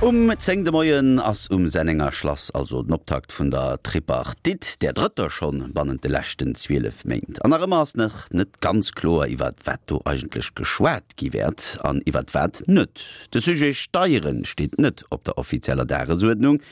Um 10 de Moien ass um Sennenger Schlass also den Optakt vun der Tripartite, där drëtter schonn bannent de leschten 12 Méint. An nach ëmmer ass nach net ganz kloer, iwwert wat do eigentlech geschwat gi wäert an iwwert wat net. De Sujet Steieren steet net op der offizieller Dagesuerdnung,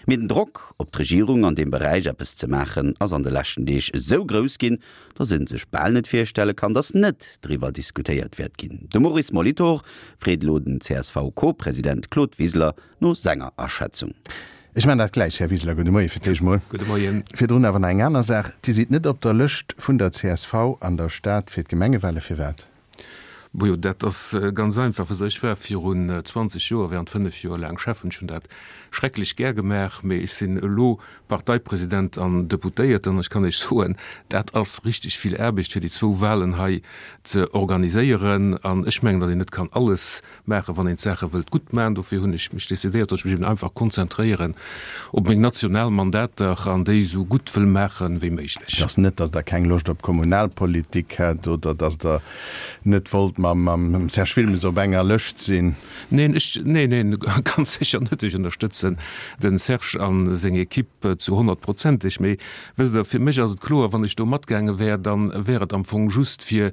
mee den Drock op d'Regierung an deem Beräich eppes ze maachen ass an de leschten Deeg esou grouss ginn, dass ee sech bal net virstelle kann, dass net driwwer diskutéiert wäert ginn. De Maurice Molitor freet elo den CSV-Co-President Claude Wiseler no senger Aschätzung. Ech maachen dat gläich, Här Wiseler. Gudde Moie fir d'éischt mol. Gudde Moien. Virdrun awer nach eng aner Saach. Dir sidd net op der Lëscht vun der csv an der Stad fir d'Gemengewale. Firwat? Bojo, dat ass ganz einfach. Wësst Der, ech war virun 20 Joer während 5 Joer laang Schäffen. Ech hunn dat schrecklech gär gemaach, mee ech sinn elo Parteipresident an Deputéierten an ech kann Iech soen, dat ass richteg vill Aarbecht, fir déi zwou Wahlen hei ze organiséieren. An ech mengen, datt een net kann alles maachen, wann een d'Saache wëllt gutt maachen. Dofir hunn ech mech decidéiert, datt ech mech eben einfach konzentréieren op meng national Mandater an déi esou gutt wëll maache wéi méiglech. Et ass net, datt Der keng Loscht op Kommunalpolitik hätt oder datt Der net wollt mam Serge Wilmes op enger Lëscht sinn? Neen, ech, neen, neen, ganz sécher net. Ech ënnerstëtzen de Serge a seng Equipe zu honnertprozenteg. Mee wësst Der, fir mech ass et kloer, wann ech do matgaange wär, da wär et am Fong just fir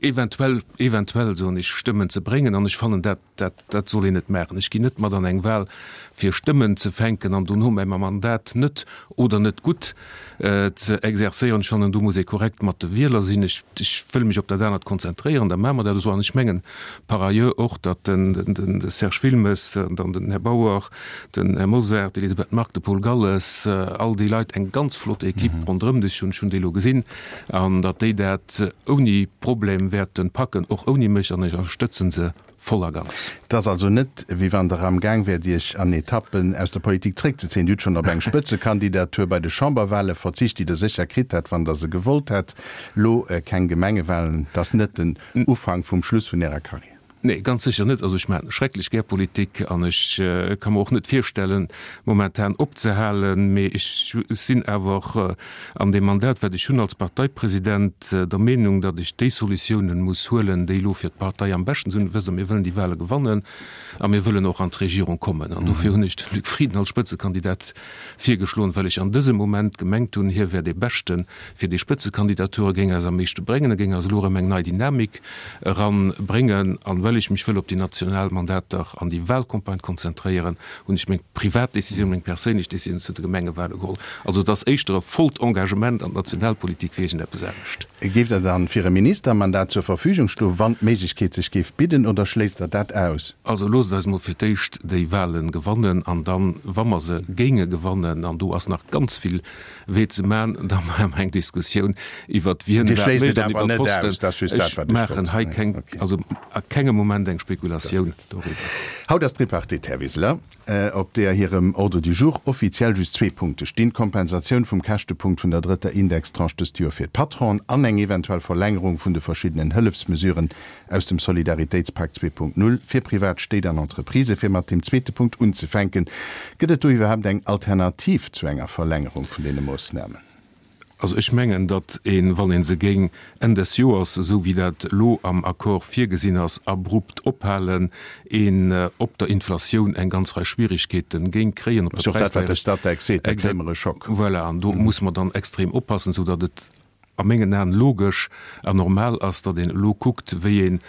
eventuell, eventuell soen ech, Stëmmen ze bréngen, an ech fannen, dat, dat, dat soll een net maachen. Ech ginn net mat an eng Wahl, fir Stëmmen ze fänken an dono mäi Mandat net oder net gutt ze exerzéieren. Ech fannen, do muss ee korrekt mat de Wieler sinn. Ech, ech wëll mech op dat anert konzentréieren, da maache mer dat esou. An ech mengen par ailleurs och, datt den, den, de Serge Wilmes, dann den Här Bauer, den Här Mosar, d'Elisabeth Margue, de Paul Galles, all déi Leit eng ganz flott Equipe ronderëm sech hunn. Ech hunn déi elo gesinn. An datt déi dat ouni Problem wäerte packen, och ouni mech, an ech ënnerstëtzen se voll a ganz. Et ass also net, wéi wann Der amgaang wäert, Iech an Etappen aus der Politik zréckzezéien. Dir hutt schonn op eng Spëtzekandidatur bei de Chamberwahle verzicht, déi Der sécher kritt hätt, wann Der se gewollt hätt. Lo keng Gemengewahlen, dat ass net den Ufank vum Schluss vun Ärer Karriär. Nee, ganz sécher net. Also ech maachen schrecklech gär Politik an ech ka mer och net virstellen, momentan opzehalen. Mee ech sinn awer an deem Mandat, wat ech hunn als Parteipresident, der Meenung, datt ech déi Solutiounen muss huelen, déi elo fir d'Partei am beschten sinn. Wësst Der, mir wëllen déi Wahle gewannen a mir wëllen och an d'Regierung kommen. An dofir hunn ech de Luc Frieden als Spëtzekandidat virgeschloen, well ech an dësem Moment gemengt hunn, hie wär dee Beschten fir déi Spëtzekandidatur, e géing eis am meeschte bréngen, e géing eis elo erëm eng nei Dynamik eran bréngen. An well ech mech wëll op déi national Mandater an déi Wahlcampagne konzentréieren, hunn ech meng privat Décisioun, meng perséinlech Décisioun zu de Gemengewahle geholl. Also et ass éischter e vollt Engagement an d'Nationalpolitik wéi iergendeppes anescht. Géift Der dann fir e Ministermandat zur Verfügung stoen, wann d'Méiglechkeet sech géif bidden, oder schléisst Der dat aus? Also loosst eis mol fir d'éischt déi Wahlen gewannen an dann, wa mer se géinge gewannen, an do ass nach ganz vill Wee ze man, da maache mer eng Diskussioun iwwert wien wat mécht an iwwert d'Posten. Ech maachen hei keng, also a kengem Moment eng Spekulatioun doriwwer. Haut ass d'Tripartite, Här Wiseler, op deeër hirem Ordre du jour offiziell just zwee Punkte stinn, d'Kompensatioun vum Käschtepunkt vun der drëtter Indextranche dëst Joer fir d'Patronen an eng eventuell Verlängerung vun de verschiddenen Hëllefsmesuren aus dem Solidaritéitspak 2.0 fir privat Stéit an Entreprisë. Fir mat deem zweete Punkt unzefänken, Gëtt et do iwwerhaapt eng Alternativ zu enger Verlängerung vun deene Moossnamen? Also ech mengen, datt een, wann ee se géing Enn des Joers, esou wéi dat elo am Accord virgesinn ass, abrupt ophalen, een op der Inflatioun eng ganz Rei Schwierigkeete géing kréien, op der Präisdéierecht. Dat ass och dat, wat de Statec seet, da kréie mer e Schock. Voilà, an do muss mer dann extrem oppassen, esou datt et a mengen Aen logesch an normal ass, datt een elo kuckt, wéi een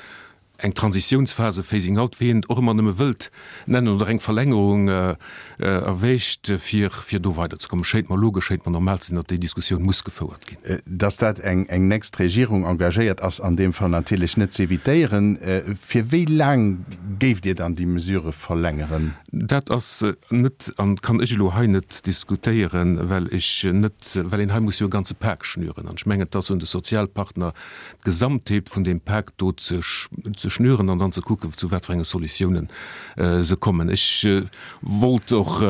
eng Transitiounsphase, Phasing out, wéi een et och ëmmer nëmme wëllt nennen, oder eng Verlängerung erwägt, fir fir do weiderzekommen. Schéint mer logesch, schéint mer normal ze sinn, datt déi Diskussioun muss gefouert ginn. Datt dat eng eng nächst Regierung engagéiert, ass an deem Fall natierlech net z'evitéieren. Fir wéi laang géift Dir dann déi Mesure verlängeren? Dat ass net an kann ech elo hei net diskutéieren, well ech net, well een hei muss jo e ganze Pak schnüren. An ech mengen, et ass un de Sozialpartner, d'Gesamtheet vun deem Pak do ze schnüren an dann ze kucken, zu wat fir enge Solutiounen se kommen. Ech wollt och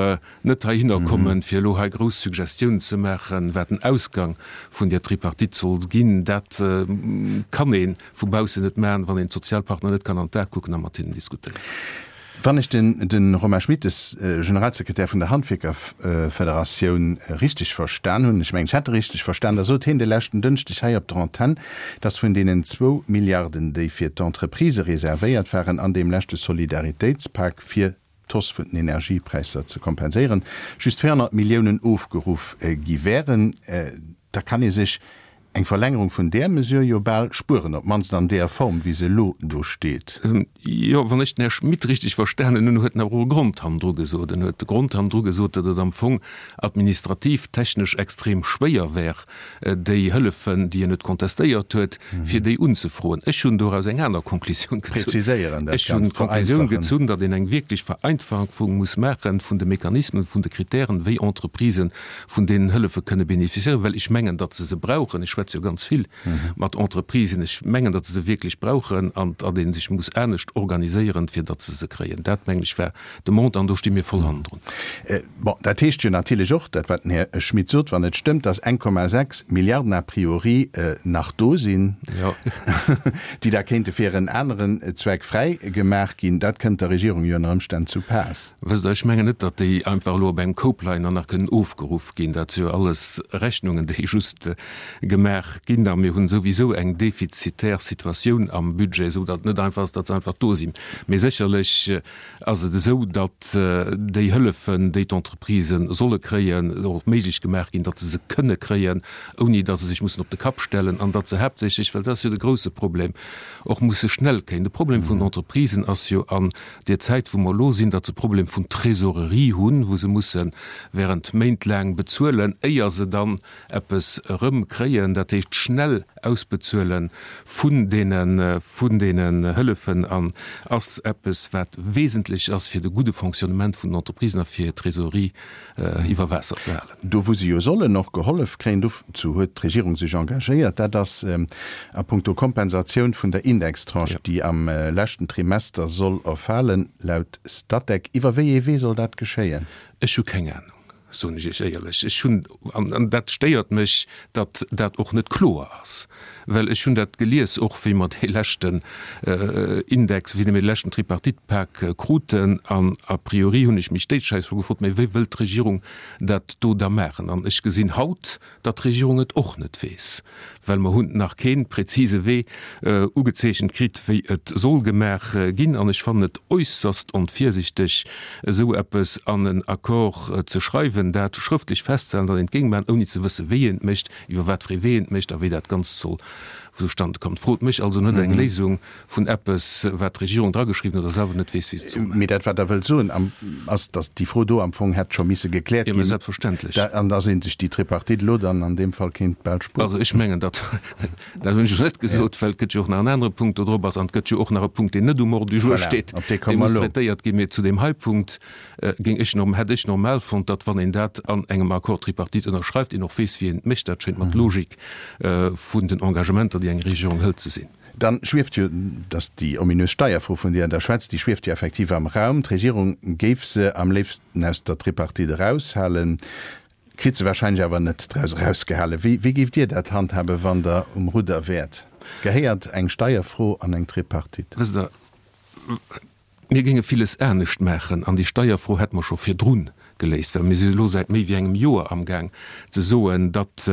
net heihinner kommen, fir elo hei grouss Suggestiounen ze maachen, wat den Ausgang vun där Tripartite soll ginn. Dat kann ee vu baussen net maachen, wann een d'Sozialpartner net kann an d'Ae kucken a mat hinnen diskutéieren. Wann ech de Romain Schmittes, Generalsekretär vun der Handwierkerfederatioun, richteg verstan hunn, ech mengen, ech hätt e richteg verstan, da sot hien de leschten Dënschdeg hei op der Antenn, datt vun deenen zwou Milliarden, déi fir d'Entreprisë reservéiert waren an deem leschte Solidaritéitspak fir. d'Hausse vun den Energiepräisser ze kompenséieren, just 400 Milliounen ofgeruff gi wären. Da kann ee sech eng Verlängerung vun där Mesure jo bal spueren, op d'mannst an där Form, wéi se elo do steet. Jo, wann ech den Här Schmit richteg verstanen hunn, huet en awer och e Grond hannendru gesot. En huet de Grond hannendru gesot, datt et am Fong administrativ, technesch extrem schwéier wär, déi Hëllefen, déi en huet contestéiert huet, fir déi unzefroen. Ech hunn doraus eng aner Konklusioun gezunn. Präziséieren, dat Ech hunn Ganzt d'Konklusioun vereinfachen. gezunn, datt een eng wierklech Vereinfachung muss maache vun de Mechanismen, vun de Kritären, wéi Entreprisë vun deenen Hëllefe kënne bénéficiéieren, well ech mengen, datt se se brauchen. Ech schwätze jo ganz vill mat Entreprisen. Ech mengen, datt se se wierklech brauchen an datt ee sech muss anescht organiséieren, fir datt se se kréien. Dat, mengen ech, war de Montant an do sti mir voll hannendrun. Bon, dat heescht jo natierlech och, dat wat den Här Schmit sot, wann et stëmmt, datt 1,6 Milliarden a priori nach do sinn, déi da kéinte fir en aneren Zweck fräi gemaach ginn. Dat kënnt der Regierung jo ënner Ëmstänn zu Paass. Wësst Der, ech mengen net, datt déi einfach elo op engem Koup leien an nach kënnen ofgeruff ginn. Dat si jo alles Rechnungen, déi just gemaach ginn. A mir hunn souwisou eng defizitär Situatioun am Budget, esou datt et net einfach ass, datt se einfach do sinn. Mee sécherlech ass et esou, datt déi Hëllefen, déi d'Entreprisë solle kréien, och méiglech gemaach ginn, datt se se kënne kréien, ouni datt se sech mussen op de Kapp stellen an datt se haaptsächlech, well dat ass jo de grouse Problem, och musse schnell kréien. De Problem vun den Entreprisen ass jo an deer Zäit, wou mer elo sinn, datt se Problem vun Trésorerie hunn, wou se musse während Méint laang bezuelen, éier se dann eppes erëmkréien, dat heescht schnell ausbezuele vun deene vun deenen Hëllefen an ass eppes wat wesentlech ass fir de gudde Fonctionnement vun den Entreprisen a fir hir Trésorerie iwwer Waasser ze halen. Do wou se jo sollen och gehollef kréien, dozou huet d'Regierung sech engagéiert, dat ass a puncto Kompensatioun vun der Indextranche, déi am leschten Trimester soll erfalen, laut Statec. Iwwer wéi ee Wee soll dat geschéien? Ech hu keng Anung. soen ech Iech éierlech. Ech hunn, an dat stéiert mech, datt dat och net kloer ass, well ech hunn dat gelies, och wéi mer dee leschten Index, wéi mir de leschten Tripartite-Pak kruten, an a priori hunn ech mech déi Schäiss scho gefrot, mä wéi wëllt d'Regierung dat do da maachen? An ech gesinn haut, datt d'Regierung et och net weess, well mer hunn nach kee präzise Wee ugezeechent kritt, wéi et soll gemaach ginn. An ech fannen et äusserst onvirsichteg, esou eppes an en Accord ze schreiwen, dat schrëftlech festzehalen, datt een et géing maachen, ouni ze wëssen, wéi een et mécht, iwwer wat fir ee Wee een et mécht a wéi dat Ganzt soll zustande kommen. Frot mech also net eng Léisung vun eppes, wat d'Regierung drageschriwwen huet a selwer net weess, wéi se et soll maachen. Mee dat, wat Der wëllt soen, ass, datt déi Fro do am Fong hätt scho misse gekläert ginn. Jo, mä selbstverständlech. An datt ee sech déi Tripartite elo dann an deem Fall kéint bal spueren. Also ech mengen, datt, dat hunn ech elo net gesot, well et gëtt jo och nach en anere Punkt do drop ass an et gëtt jo och nach e Punkt, deen net um Ordre du jour steet, dee muss traitéiert ginn. Mee zu deem hei Punkt géing ech, hätt ech normal fonnt, datt, wann een dat an engem Accord tripartite ënnerschreift, een och weess, wéi een et mécht. Dat schéint mer d'Logik vun den Engagementer, déi eng Regierung hëlt, ze sinn. Dann schwieft jo, dass déi ominös Steierfro, vun deer Der schwätzt, déi schwieft jo effektiv am Raum. D'Regierung géif se am léifsten aus der Tripartite eraushalen, kritt se wahrscheinlech awer net draus erausgehalen. Wéi, wéi géift Dir dat handhaben, wann Der um Rudder wäert? Gehéiert eng Steierfro an eng Tripartite? Wësst Der, Mir géinge villes anescht maachen an déi Steierfro hätte mer scho virdru geléist, well mir si elo säit méi wéi engem Joer amgaang ze soen, datt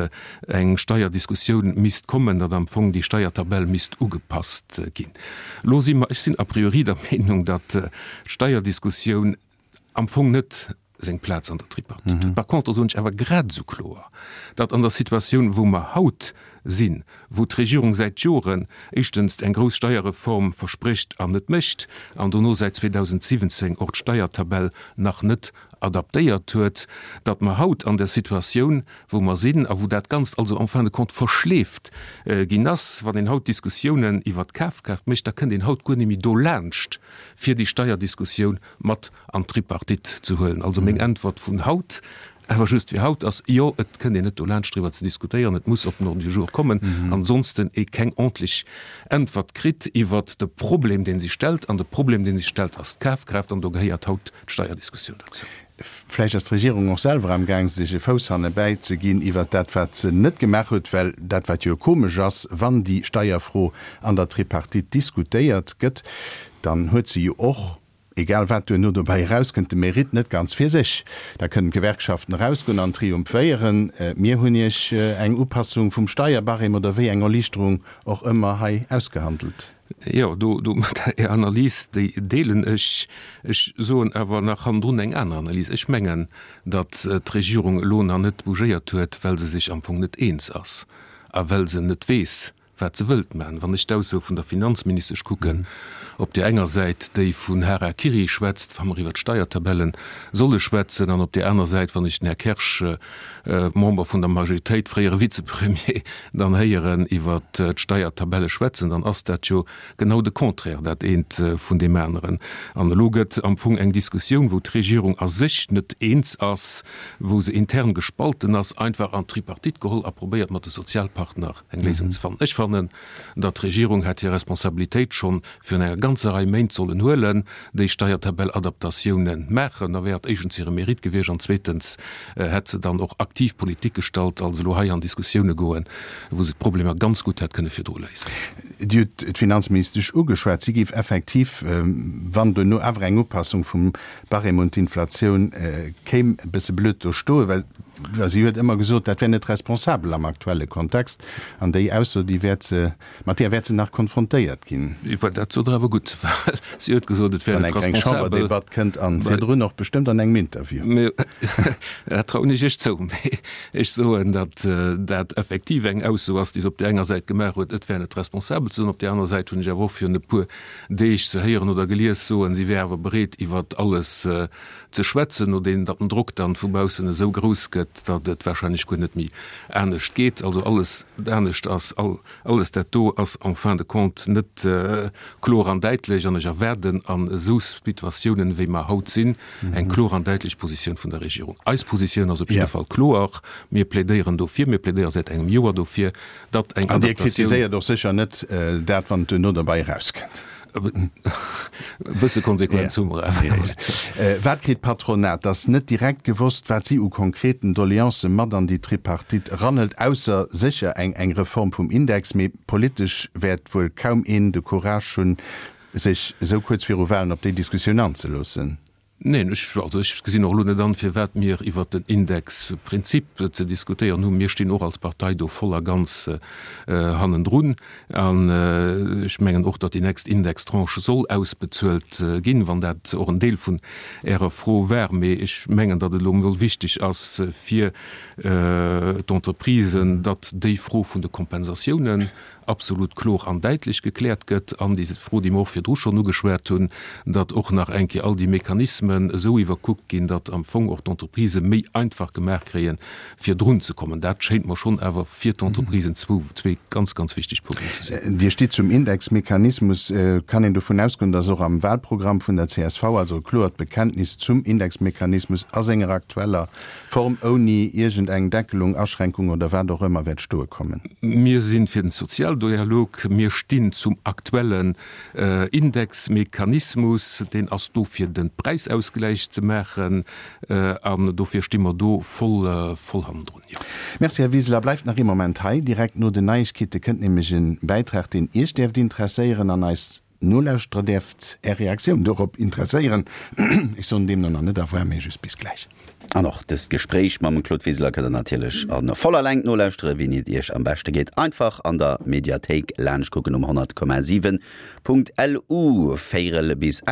eng Steierdiskussioun misst kommen, datt am Fong déi Steiertabell misst ugepasst ginn. Elo si mer, ech sinn a priori der Meenung, datt d'Steierdiskussioun am Fong net seng Plaz an der Tripartite huet. Par contre soen ech awer grad esou kloer, datt an der Situatioun, wou mer haut sinn, wou d'Regierung säit Joren éischtens eng grouss Steierreform versprécht an net mécht, an dono säit 2017 och d'Steiertabell nach net adaptéiert huet, datt mer haut an der Situatioun, wou mer sinn a wou dat Ganzt also en fin de compte verschleeft ginn ass, wann een haut Diskussiounen iwwert d'Kafkraaft mécht, da kënnt een haut guer net méi dolaanscht, fir déi Steierdiskussioun mat an d'Tripartite ze huelen. Also meng Äntwert vun haut, awer just fir haut, ass, Jo, et kënnt een net dolaanscht driwwer ze diskutéieren, et muss op den Ordre du jour kommen, ansonsten ee keng ordntlech Äntwert kritt iwwert de Problem, dee sech stellt. An de Problem, dee sech stellt, ass d'Kafkraaft, an do gehéiert haut d'Steierdiskussioun dozou. Vläicht ass d'Regierung och selwer amgaang, sech e Fouss hannebäi ze ginn iwwert dat, wat se net gemaach huet, well dat, wat jo komesch ass, wann déi Steierfro an der Tripartite diskutéiert gëtt, dann huet se jo och, egal wat duerno dobäi erauskënnt, de Mérite net ganz fir sech. Da kënnen d'Gewerkschaften erausgoen an triumphéieren, Mir hunn Iech eng Upassung vum Steierbarème oder wéi eng Erliichterung och ëmmer hei ausgehandelt. Jo, do, do, Är Analys, déi deelen ech. Ech soen awer nach hannendrun eng aner Analys. Ech mengen, datt d'Regierung elo nach net bougéiert huet, well se sech am Fong net eens ass a well se net weess, wat se wëllt maachen. Wann ech d'Ausso vun der Finanzministesch kucken, op där enger Säit, déi vun Hara-Kiri schwätzt, wa mer iwwert d'Steiertabelle solle schwätzen, an op där aner Säit, wann ech den Här Kersch, Member vun der Majoritéit, fréiere Vizepremier, dann héieren iwwert d'Steiertabelle schwätzen, dann ass dat jo genau de Contraire, dat eent vun deem aneren. An elo gëtt am Fong eng Diskussioun, wou d'Regierung a sech net eens ass, wou se intern gespalten ass, einfach an d'Tripartite geholl a probéiert mat de Sozialpartner eng Léisung ze fannen. Ech fannen, datt d'Regierung hätt hir Responsabilitéit schonn virun enger ganzer Rei Méint sollen huelen, déi Steiertabell-Adaptatiounen maachen. Da wär et éischtens hire Mérite gewiescht an zweetens hätt se dann och aktiv Politik gestallt, als elo hei an Diskussioune goen, wou se d'Problemer ganz gutt hätt kënne virdru léisen. Dir hutt d'Finanzministesch ugeschwat. Si géif effektiv, wann duerno awer eng Upassung vum Barème un d'Inflatioun kéim, e bësse blöd do stoen, well si huet ëmmer gesot, dat wär net responsabel am aktuelle Kontext. An déi Ausso, déi wäert se, mat där wäert se nach konfrontéiert ginn. Dat sot Der awer gutt, well si huet gesot, et wär net responsabel. Wann eng kleng Chamberdebatt kënnt an virdrun och bestëmmt an engem Interview. Dat trauen ech Iech zou. Mee ech soen, datt dat effektiv eng Ausso ass, déi se op där enger Säit gemaach huet, et wär net responsabel ze soen. Op där aner Säit hunn ech awer och virun e puer Deeg ze héieren oder gelies soen, si wär awer bereet iwwer alles ze schwätzen, nodeem datt den Drock dann vu baussen esou grouss gëtt, datt et wahrscheinlech guer net méi anescht geet. Also alles anescht ass, alles dat do ass en fin de compte net kloer an däitlech an ech erwaarden an esou Situatiounen, wéi mer haut sinn, eng kloer an däitlech Positioun vun der Regierung. Eis Positioun ass op jidde Fall kloer, Mir plädéieren dofir, mir plädéiere säit engem Joer dofir, datt eng An Dir Adaptatioun. kritiséiert och sécher net dat, wann et duerno derbei erauskënnt. E bësse Konsequenz hu mer awer. Wat kritt d'Patronat? Et ass net direkt gewosst, wat si u konkreten Doleancë mat an déi Tripartite eranhëlt, ausser sécher eng eng Reform vum Index. Mee politesch wäert wuel kaum een de Courage hunn, sech esou kuerz viru Walen op déi Diskussioun anzeloossen. Neen, ech, also ech gesinn och elo net an, firwat mir iwwert den Indexprinzip ze diskutéieren hunn. Mir stinn och als Partei do voll a ganz hannendrun. An ech mengen och, datt déi nächst Indextranche soll ausbezuelt ginn, wann dat och en Deel vun Ärer Fro war. Mee ech mengen, datt et elo emol wichteg ass fir d'Entreprisen, datt déi Fro vun de Kompensatiounen absolut kloer an däitlech gekläert gëtt, an déi Fro, déi mer och virdru schonn ugeschwat hunn, datt och nach eng Kéier all déi Mechanismen esou iwwerkuckt ginn, datt am Fong och d'Entreprisë méi einfach gemaach kréien, fir drun ze kommen. Dat schéint mer schonn awer fir d'Entreprisen zwou, zwee ganz, ganz wichteg Punkten ze sinn. Dir stitt zum Indexmechanismus. Kann een dovun ausgoen, datt och am Wahlprogramm vun der csv, also e kloert Bekenntnis zum Indexmechanismus a senger aktueller Form ouni iergend eng Deckelung, Aschränkung oder wat och ëmmer wäert stoe kommen. Mir si fir den Sozialdialog. Mir stinn zum aktuellen Indexmechanismus. Deen ass do fir de Präisausgläich ze maachen an dofir sti mer do voll, voll hannendrun, jo. Merci, Här Wiseler. Bleift nach ee Moment hei. Direkt no den Neiegkeete kënnt nämlech e Bäitrag, deen Iech däerft interesséieren an eis Nolauschterer däerft Är Reaktioun dorop interesséieren. Ech soen deemno nach net au revoir, mee just bis gläich. An och dëst Gespréich mam Claude Wiseler kënnt der natierlech a voller Längt nolauschtere wéini et Iech am beschte geet. Einfach an der Mediathéik laanscht kucken um 100,7.lu. Véierel bis 8.